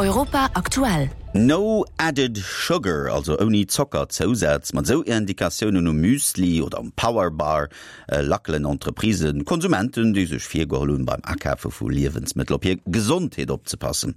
Europa aktuell. No added sugar, also ouni Zockerzousaz. Mat esou Indikatiounen um Müsli oder um Power Bar lackelen Entreprisen Konsumenten, déi sech virgeholl hunn, beim Akafe vu Liewensmëttel op hir Gesondheet opzepassen.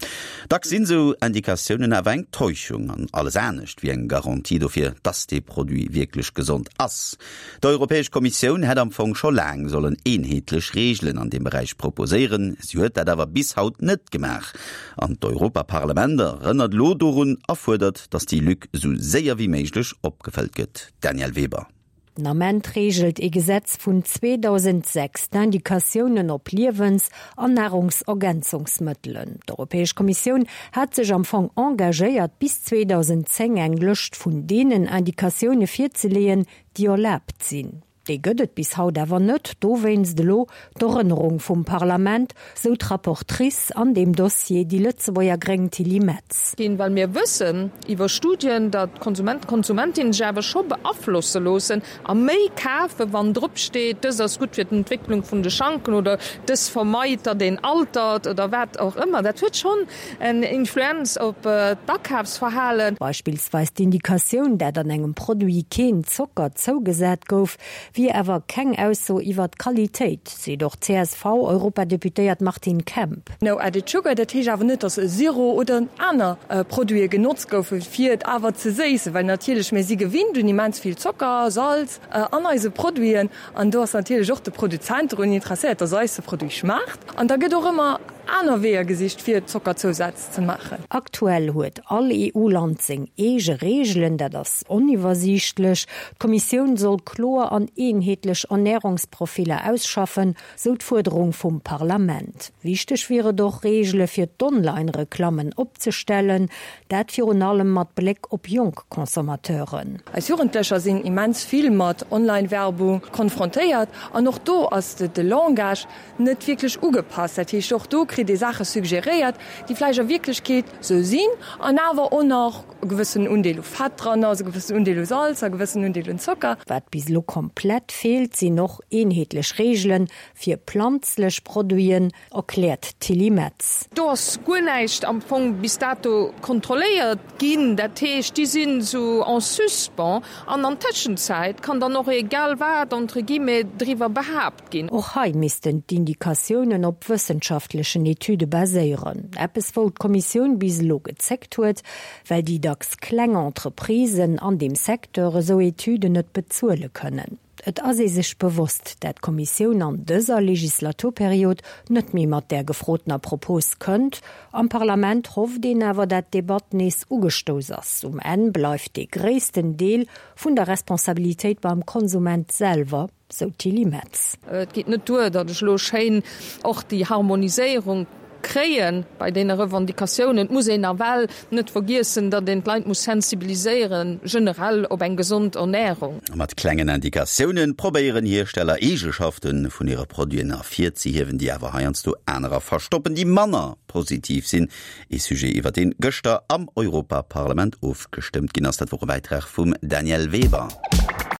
Dacks sinn esou Indikatiounen awer eng Täuschung an alles anescht wéi eng Garantie dofir, dass dee Produit wierklech gesond ass. D'Europäesch Kommissioun hätt am Fong scho laang sollen eenheetlech Reegelen an deem Beräich proposéieren. Si huet dat awer bis haut net gemaach. An d'Europaparlament erënnert elo dorun a fuerdert, datt déi Lück esou séier wéi méiglech opgefëllt gëtt. Danièle Weber. Den Ament reegelt ee Gesetz vun 2006 d'Indikatiounen op Liewens an Nahrungsergänzungsmëttelen. D'Europäesch Kommissioun hat sech am Fong engagéiert, bis 2010 eng Lëscht vun deenen Indikatioune virzeleeën, déi erlaabt sinn. Déi gëtt et bis haut awer net. Dowéinst elo d'Erënnerung vum Parlament, sou d'Rapportrice an deem Dossier, déi Lëtzebuerger Gréng Tilly Metz. Ginn, well mir wëssen iwwer Studien, datt d'Konsumenten, d'Konsumentinnen sech awer scho beaflosse loossen a méi kafen, wann drop steet, dës ass gutt fir d'Entwécklung vun de Schanken oder dës vermeit, datt een altert oder wat och ëmmer. Dat huet schonn en Influenz op d'Akafsverhalen. Beispillsweis d'Indikatioun, dat an engem Produit keen Zocker zougesat gouf, wier awer keng Ausso iwwer d'Qualitéit, seet och d'CSV-Europadeputéiert Martine Kemp. No added sugar, dat heescht awer net, datt e Sirop oder aner Produite genotzt goufen, fir et awer ze séissen, well natierlech mir si gewinnt un immens vill Zocker, Salz an eise Produiten an do ass natierlech och de Produzent drun interesséiert, datt eis de Produit schmaacht an da gëtt och ëmmer aner Weeër gesicht, fir Zockerzousaz ze maachen. Aktuell huet all EU-Land seng eege Reegelen, dat ass oniwwersiichtlech. D'Kommissioun soll kloer an eenheetlech Ernärungsprofiller ausschaffen, sou d'Fuerderung vum Parlament. Wichteg wier et och, Reegele fir d'Online-Reklammen opzestellen, dat virun allem mat Bléck op jonk Consommateuren. Eis Jugendlecher sinn immens vill mat Online-Werbung konfrontéiert an och do ass de Langage net wierklech ugepasst. Dat heescht, och do kritt ee Saache suggeréiert, déi vläicht a Wierklechkeet sou sinn an awer och nach e gewëssenen Undeel u Fett dran ass, e gewëssenen Undeel u Salz a e gewëssenen Undeel un Zocker. Wat bis elo komplett feelt, sinn och eenheetlech Reegele fir planzlech Produiten, erkläert d'Tilly Metz. Do ass guer näischt am Fong bis dato kontrolléiert ginn. Dat heescht, déi sinn esou en suspens an an Tëschenzäit kann dann och egal wat, entre guillemets, driwwer behaapt ginn. Och hei missten d'Indikatiounen op wëssenschaftlechen Etüde baséieren. Eppes wou d'Kommissioun bis elo gezéckt huet, well déi dacks kleng Entreprisen an deem Secteur esou Etüden net bezuele kënnen. Et ass ee sech bewosst, dat d'Kommissioun an dëser Legislaturperiod net méi mat där gefrotener Propos kënnt. Am Parlament hofft een awer, dat d'Debatt nees ugestouss ass. Um Enn bleift dee gréissten Deel vun der Responsabilitéit beim Konsument selwer. Sou d'Tilly Metz. Et geet net duer, datt ech elo schéin och déi Harmoniséierung kréie bei deene Revendicatiounen. Et muss een nawell net vergiessen, datt een d'Leit muss sensibiliséieren, generell op eng gesond Ernährung. Mat klengen Indikatioune probéieren Hiersteller Eegeschafte vun hire Produiten ervirzehiewen, déi awer heiansdo anerer verstoppen, déi manner positiv sinn. Ee Sujet, iwwer deen gëschter am Europaparlament ofgestëmmt ginn ass. Dat wor e Bäitrag vum Danièle Weber.